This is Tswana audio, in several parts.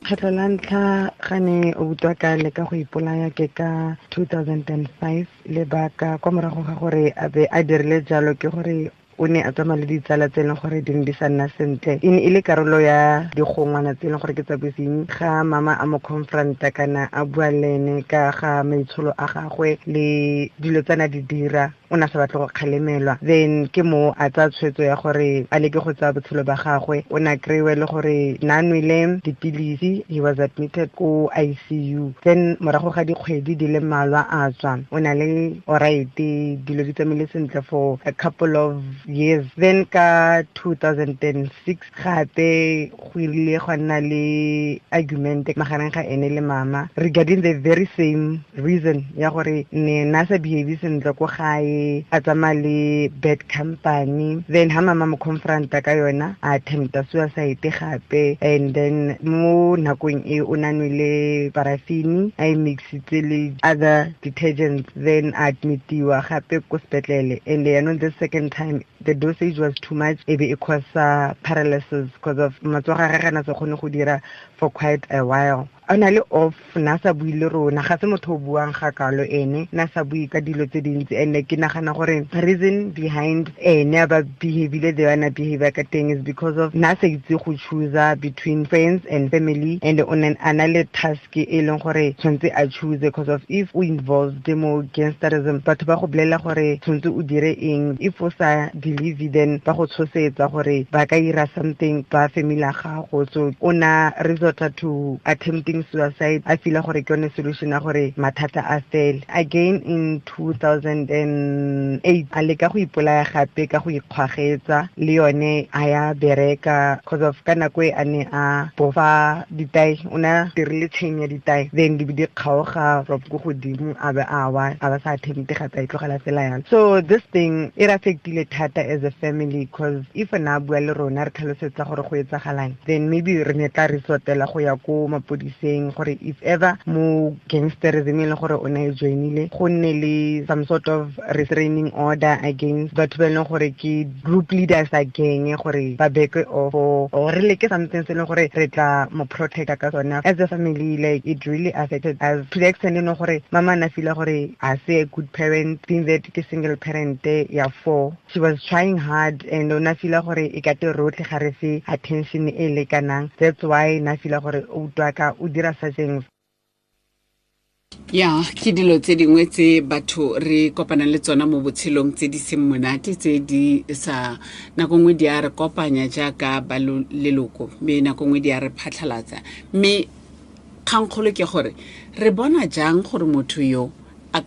Kgetlho la ntlha ga ne o utlwa ka leka go ipolaya ke ka 2005. Lebaka kwa morago ga gore a be a dirile jalo ke gore o ne a tsamaya le ditsala tse e leng gore di ne di sa nna sentle. E ne e le karolo ya digongwana tse e leng gore ke tsa bosenyi. Ga mama a mo confronta kana a bua le ene ka ga maitsholo a gagwe le dilo tse na di dira, o ne a sa batle go kgalemelwa. Then ke mo a tsaya tshwetso ya gore a leke go tsaya botshelo ba gagwe. O ne a kry-iwe le gore na nwele dipilisi, he was admitted ko ICU. Then morago ga dikgwedi di le mmalwa a tswa, o na le alright, dilo di tsamaile sentle for a couple of years. Then ka 2006 gape go ile gwa nna le argument magareng ga ene le mama regarding the very same reason ya gore ne na sa behave sentle ko gae, a tsamaya le bad company. Then ha mama mo confronta ka yona, a attempta suicide gape. And then mo nakong e o na nwele paraffin, a e mixitse le other detergents, then a admitiwa gape ko sepetlele. And yaanong the second time the dosage was too much, e be e cause paralysis because of matsogo a gagwe a na sa kgone go dira for quite a while. A na le off, na sa bue le rona, ga se motho o buang ga kalo ene, na sa bue ka dilo tse dintsi. And ke nagana gore reason behind ene a ba behavile the way a behave ka teng is because of na sa itse go choose between friends and family, and o ne a na le task e leng gore tshwanetse a choose, because of if o involved mo gangsterism, batho ba go bolela gore tshwanetse o dire eng. If o sa believe, then ba go tshosetsa gore ba ka ira something ba family ya gago. So o na resorta to attempting suicide, a feel gore ke yone solution ya gore mathata a fele. Again in 2008 a leka go ipolaya gape ka go ikgwagetsa, le yone a ya bereka, because of ka nako e a ne a bofa ditae, o ne a dirile chain ya ditae, then di be di kgaoga from ko godimo, a be a wa, a ba sa attempte gape, a itlogela fela yalo. So this thing e re affectile thata as a family, because if na bua le rona re tlhalosetsa gore go etsagalang, then maybe re ne tla resortela go ya ko mapodiseng, gore if ever mo gangsterism e leng gore o ne e joinile, go nne le some sort of restraining order against batho ba e leng gore ke group leaders a gang, gore ba back off or re leke something se e leng gore re tla mo protecta ka sone. As a family, it really affected us to the extent e leng gore mama na feel gore a se a good parent, being that ke single parent ya 4. She was trying hard, and o na feel gore e ka te rotlhe ga re fe attention e lekanang. That's why na feel gore o utlwa ka o dira such things. Ya, ke dilo tse dingwe tse batho re kopanang le tsona mo botshelong tse di seng monate, tse di sa nako nngwe di a re kopanya jaaka ba leloko, mme nako nngwe di a re phatlhalatsa. Mme kgangkgolo ke gore re bona jang gore motho yo o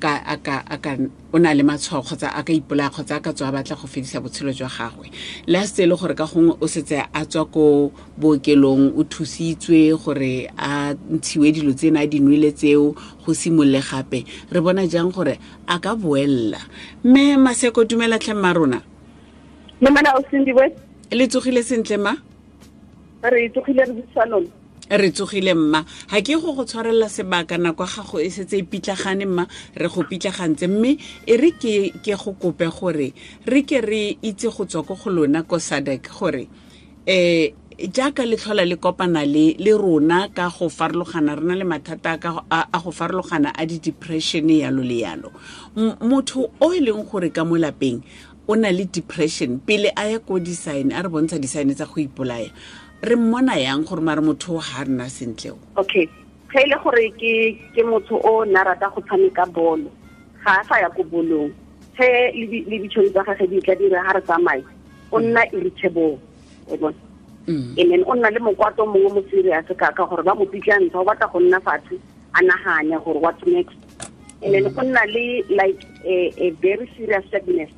na le matshwao kgotsa a ka ipolaya kgotsa a ka tswa a batla go fedisa botshelo jwa gagwe, le a setse e le gore ka gongwe o setse a tswa ko bookelong, o thusitswe gore a ntshiwe dilo tsena a di nwele tseo, go simolole gape. Re bona jang gore a ka boella? Mme Maseko, dumela tlhe mma rona. Mme o Sindiwe. Le tsogile sentle ma? Re tsogile, re busa lona. Re tsogile mma. Ha ke go go tshwarela sebaka, nako ya gago e setse e pitlagane mma, re go pitlagantse, mme e re ke go kope gore re ke re itse go tswa ko go lona ko SADAG gore jaaka le tlhola le kopana le rona ka go farologana, re na le mathata a go farologana a di-depression yalo le yalo. Motho o e leng gore ka mo lapeng o na le depression, pele a ya ko di-sign, a re bontsha di-sign tsa go ipolaya, re mmona yang gore mare motho o ha rena sentle o? Okay, ge e le gore ke motho o na rata go tshameka bolo, ga a sa ya ko bolong, ge le ditšhono tsa gagwe di tla dira ha re tsamaye, o nna irritable, o bona. And then o nna le mokwato mongwe mo serious ka gore ba mo pitlantsha, o batla go nna fatshe a nagane gore what's next. And then o nna le like a very serious sadness,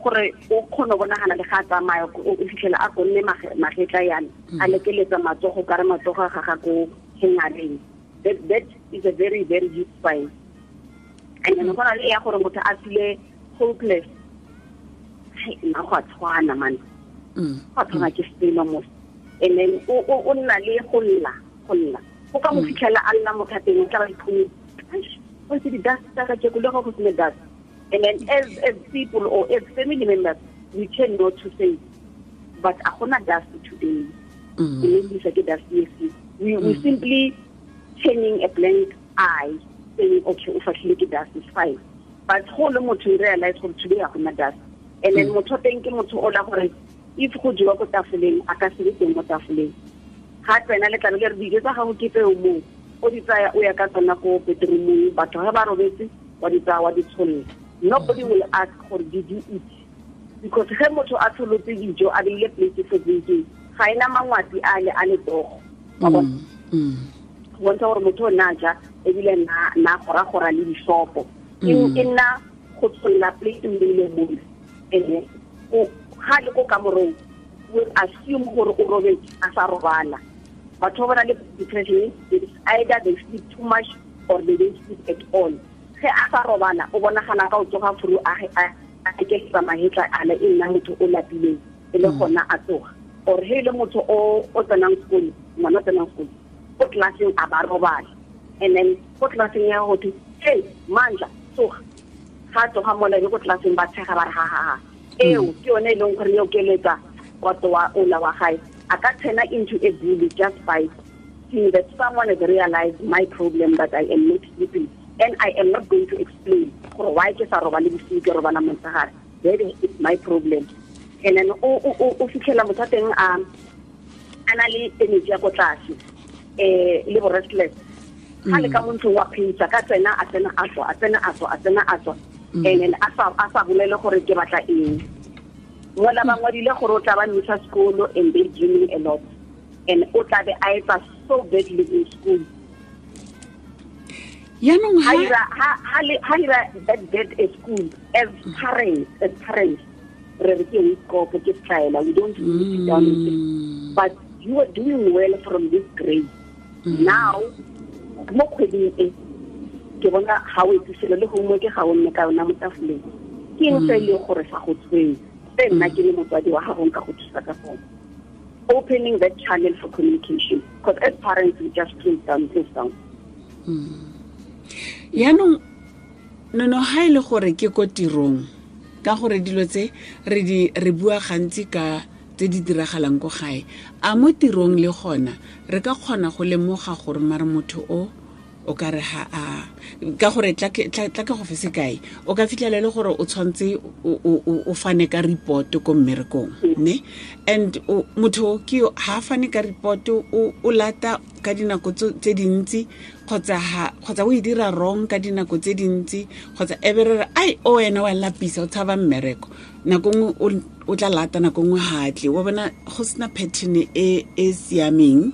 gore o kgone go bonagala le ga a tsamaya, o fitlhela a konne magetla yana, a lekeletsa matsogo ka re matsogo a gaga ko hengareng. That is a very, very huge sign. And then go na le ya gore motho a feel hopeless. Hai, nna go a tshwana, man. Go a tshwana ke selo mos. And then o nna le go lla, go lla. Go ka mo fitlhela a lla mo thateng, o tla ba iphumela. Eish, o itse di-dust tsa ka keko, le go sena dust. And then as people or as family members, we tend not to say, but a gona dust today. Ke ne ke dust yes. We simply turning a blank eye, saying, okay, o fatlhile ke dust, is fine. But go le motho o realize gore today ga gona dust. And then motho teng ke motho o la gore if go jewa ko tafoleng, a ka se be teng mo tafoleng. Ga tsena le tlabe le re dijo tsa gago ke tseo moo, o di tsaya o ya ka tsona ko bedroomong, batho ga ba robetse, wa di tsaya wa di tsholola. Nobody will ask gore did you eat, because ge motho a tsholotse dijo a beile plate for drinking, ga ena mangwati a le a letsogo. Wa bona? Go bontsha gore motho o na ja ebile na gora-gora le disopo. E nna go tsholola plate o beile mole. And ga le ko kamorong, we assume gore o robetse a sa robala. Batho ba ba na le depression, it's either they sleep too much or they don't sleep at all. Ge a sa robala, o bonagala ka o tsoga furu a eketsa mahetla a le e nna motho o lapileng, e le gona a tsoga. Or he le motho o tsenang sekolo, ngwana o tsenang sekolo, ko classeng a ba robala. And then ko classeng ya go thwe, hey, Mandla, tsoga. Ga tsoga mola e ko classeng ba tshega ba re ha ha ha. Eo ke yone e leng gore e okeletsa kwato wa ola wa gae. A ka turn into a bully just by seeing that someone has realized my problem, that I am not sleeping. And I am not going to explain gore why ke sa robale bosigo, ke robala motshegare. That is my problem. And then o fitlhela motho a teng a na le energy ya ko tlase, le bo restless. Ga le ka mo ntlong wa pheisa, ka tsena, a tsena, a tswa, a tsena, a tswa, a tsena, a tswa. And then a sa bolele gore ke batla eng. Mola ba ngwadile gore o tla ba misa sekolo and they dreaming a lot. And o tla be a etsa so badly in school. Yaanong ha ira that bad at school, as parents, re re ke o ke style, we don't really sit down and say, but you are doing well from this grade. Now, mo kgweding e, ke bona ga o etse selo le homework ga o nne ka yona mo tafoleng. Ke eng se e leng gore sa go tshwenya? Se nna ke le motswadi wa gago nka go thusa ka sone. Opening that channel for communication, because as parents we just close down, close down. Yaanong nono ha e le gore ke ko tirong, ka gore dilo tse re bua gantsi ka tse di diragalang ko gae, a mo tirong le gona re ka kgona go lemoga gore mare motho o ka re ha a, ka gore tla ke go fe sekai, o ka fitlhela le gore o tshwantse o fane ka report ko mmerekong, ne? And motho ke yo, ha a fane ka report, o lata ka dinako tse dintsi, kgotsa o e dira wrong ka dinako tse dintsi, kgotsa e be re re, ai, o wena wa lapisa, o tshaba mmereko. Nako nngwe o tla lata, nako nngwe ha a tle. Wa bona go sena pattern e siameng,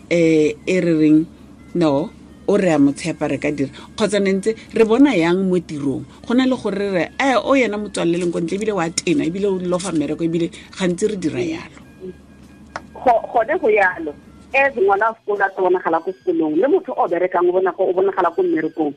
e re reng, no, o re a mo tshepa re ka dira. Kgotsa ne ntse re bona yang mo tirong, go na le gore re re, o yena motswalle leng ko ntle, ebile wa tena, ebile o lofa mmereko, ebile gantsi re dira yalo. Gone go yalo. As ngwana wa sekolo a tla bonagala ko sekolong, le motho o berekang o bonagala ko mmerekong.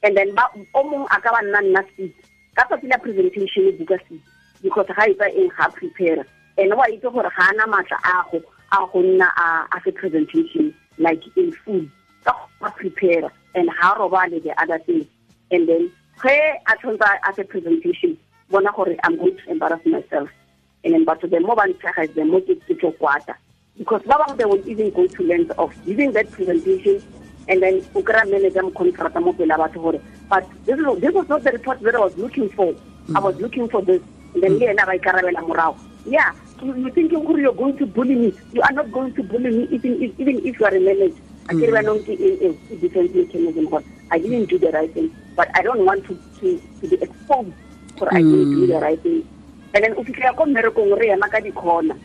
And then ba, o mongwe a ka ba nna seat. Ka tsatsi la presentation e buka seat, because ga etsa eng, ga a prepare. And wa itse gore ga ana matla a go nna a fe presentation like in full. Ka go prepare and ha robale the other thing. And then ge a tshwanetse a fe presentation, bona gore I'm going to embarrass myself. And then but the more ba ntshega, the more ke tlo kwata. Because ba bangwe they will even go to length of giving that presentation, and then o kry-a manager mo confronta mo pele batho gore, but this was not the report that I was looking for. I was looking for this. And then le ena ba ikarabela morago. Yeah, you thinking gore you're going to bully me. You are not going to bully me even if you are a manager. I ke re banong ke eng eng, ke defense mechanism gore I didn't do the right thing, but I don't want to be exposed gore I didn't do the right thing. And then o fitlhela ko mmerekong re ema ka di-corner.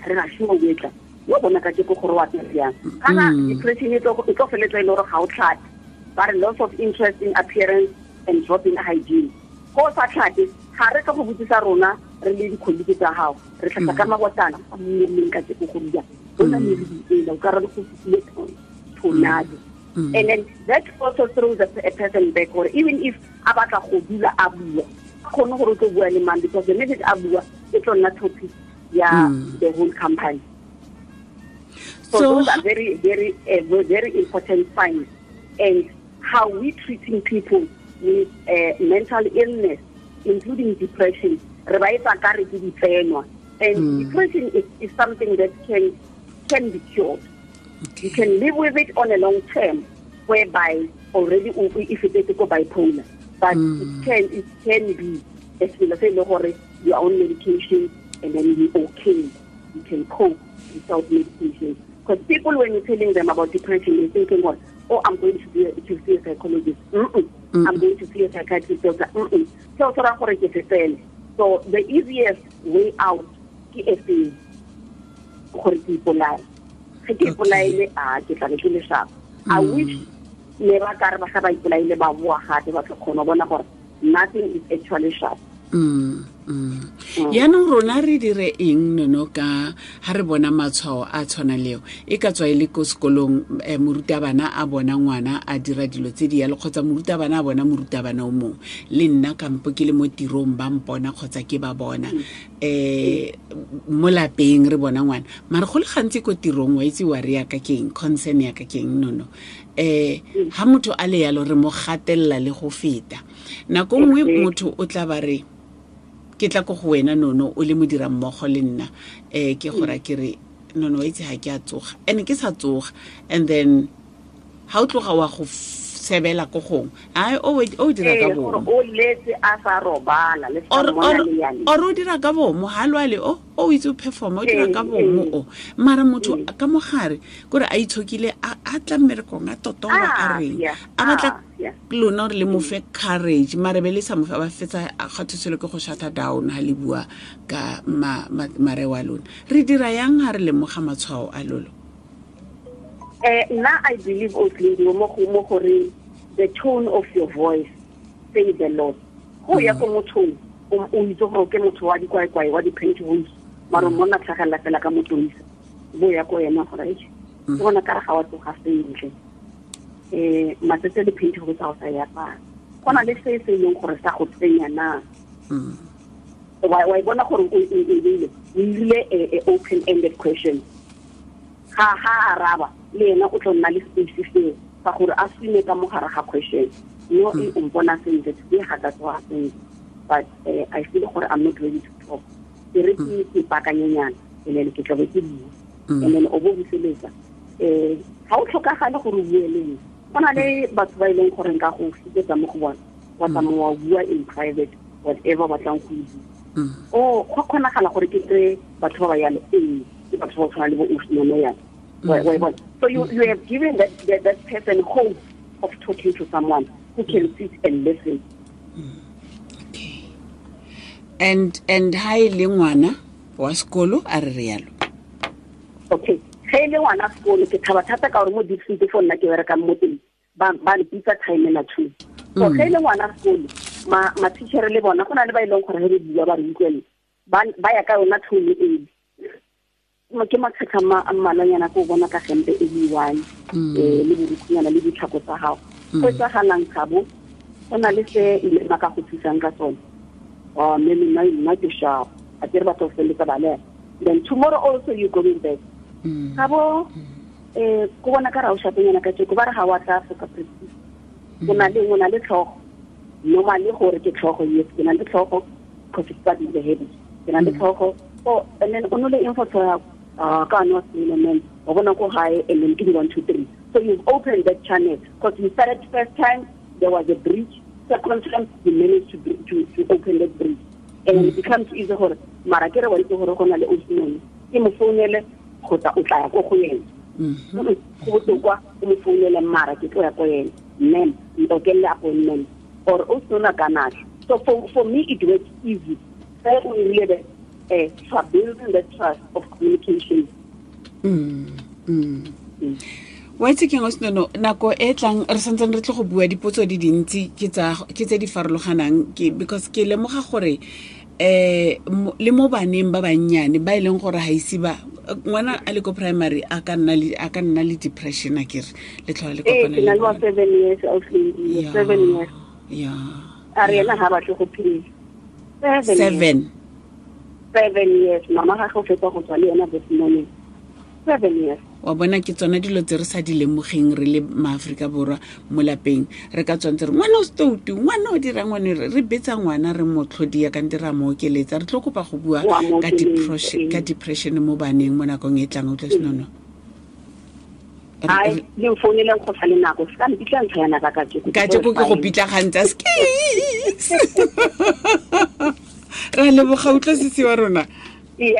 Re na shimo o etla. Yo bona ka teko gore wa apere jang. Kana depression e tlo feletsa e le gore ga o tlhape. Ba re loss of interest in appearance and drop in hygiene. Go sa tlhape, ga re tlo go botsisa rona re le di-colleague tsa gago. Re tlhapa ka mabotana, a mmeleng ka teko go bua. Bona meriri ela, o ka re go fitlhile tornado. And then that also throws a person back, or even if a batla go dula a bua, a kgone gore o tlo bua le mang, because the message a bua e tlo nna topic ya the whole company. So those are very, very, very important signs. And how we treating people with mental illness, including depression, re ba etsa ka re ke ditsenwa. And depression is something that can be cured. You can live with it on a long term, whereby already if it is go bipolar, but it can be a selo se e le gore you are on medication and then you're okay. You can cope without medication. Because people, when you're telling them about depression, they're thinking, well, oh, I'm going to see a psychologist. I'm going to see a psychiatrist. So, so the easiest way out is gore ke ipolaye. Ge ke ipolaile, a ke tla be ke le sharp. I wish ne ba ka re ba ga ba ipolaile ba boa gape ba tlo kgona bona gore nothing is actually sharp. Yaanong rona re dire eng Nono ka ha re bona matshwao a tshwana leo, e ka tswa e le ko sekolong, morutabana a bona ngwana a dira dilo tse di yalo, kgotsa morutabana a bona morutabana o mongwe, le nna kampo ke le mo tirong ba mpona kgotsa ke ba bona, mo lapeng re bona ngwana, mare go le gantsi ko tirong wa itse wa re yaka keng, concern yaka keng Nono, ha motho a le yalo re mo gatelela le go feta. Nako nngwe motho o tla ba re ke tla ko go wena Nono o le modira mmogo le nna, ke gora ke re Nono itse ha ke a tsoga, ene ke sa tsoga, and then ha o tloga wa go sebela ko gong, ai o dira ka bomo, o letse a sa robala le sa mona le yane, or o dira ka bomo ha lwale o itse o perform, o dira ka bomo o mara motho ka mogare kore a itshokile a tla mmerekong a totoba a reng a batla lona re le mo fe courage, mare be le sa mo fa ba fetsa a kgathoselo ke go shut down ha le bua ka mare wa lona. Re dira yang ha re lemoga matshwao a lolo? Nna I believe also mo gore the tone of your voice says a lot. Go ya ko mothong o itse gore ke motho wa dikwaekwae wa di-pantyhose, mara monna tlhagelela fela ka motoisa, bo ya ko ena gore ke bona ka re ga wa tsoga sentle, matsatsi a di-pantyhose ga o sa ya apara, go na le se se leng gore sa go tsenya na, wa e bona gore o ile a open ended question, ga araba le ena o tlo nna le space seo sa gore a swime ka mogare ga question, no e o mpona sentle today ga ka tsoga sentle, but I feel gore I'm not ready to talk, ke re ke ipakanyenyana and then ke tla be ke bua, and then o bo buseletsa, ga o tlhokagale gore o bue le nna. Go na le batho ba e leng gore nka go fitetsa mo go bona, wa tsamaya wa bua in private whatever batlang go bua, o go kgonagala gore ke kry batho ba ba yalo, ee ke batho ba tshwana le bo Nono yana. So you have given that person hope of talking to someone who can sit and listen. Okay. And ha e le ngwana wa sekolo a re yalo. Okay. Ge e le ngwana sekolo ke thaba thata ka gore mo district fo nna ke berekang mo teng ba mpitsa time na 2. So ge e le ngwana sekolo ma teacher le bona go na le ba e leng gore ge re bua ba re utlwele ba ya ka yona tone e. Ke makgetlho a mmalwanyana ko bona ka gempe e le one, le borukhunyana le ditlhako tsa gago. Go etsagalang Thabo, go na le se ile ba ka go thusang ka tsone. Mme nna ke sharp, a ke re batho feleletsa ba lela. Then tomorrow also you going back. Thabo, ko bona ka ra o shapenyana ka tjeko, ba re ga wa tla for ka practice. O na le tlhogo. Normally gore ke tlhogo, yes, ke na le tlhogo because it's part of the habit. Ke na le tlhogo. Oh, and then o nole info tsa ka no se o bona ko gae, and then ke 1 2 3. So you've opened that channel because you started first time there was a breach, second time you managed to open that breach, and it becomes easy gore mara ke re wa itse gore go na le o ke mo founele kgotsa o tla ya ko go yena. Go botlhokwa o mo founele mara ke tlo ya ko yena, ma'am ntokelle appointment or o sona kana. So for me it works easy. O rile for building the trust of communication. Wa itse keng Nono, nako e tlang re santsane re tle go bua dipotso di dintsi ke tse di farologanang, ke because ke lemoga gore le mo baneng ba bannyane ba e leng gore ha ise ba ngwana a le ko primary a ka nna le depression a kere le tlhola le kopana le ke na le 7 years of 7 years. Yeah. A re ena ha batle go phela. 7 years mama ga go fetsa go tswa le yena this morning. 7 years. Wa bona ke tsona dilo tse re sa di lemogeng re le maAfrika Borwa mo lapeng, re ka tswantse re ngwana o stoutu, ngwana o dira ngwane, re betsa ngwana re mo tlhodia kante ra mo okeletsa. Re tlo kopa go bua ka depression mo baneng mo nakong e tlang. O tla Senono. Ai, le mfouneleng go sa le nako, se ka mpitla ntlha ya naka kajeko. Kajeko ke go pitlagantsa skis. Ra leboga, utlwa sisi wa rona. Yeah.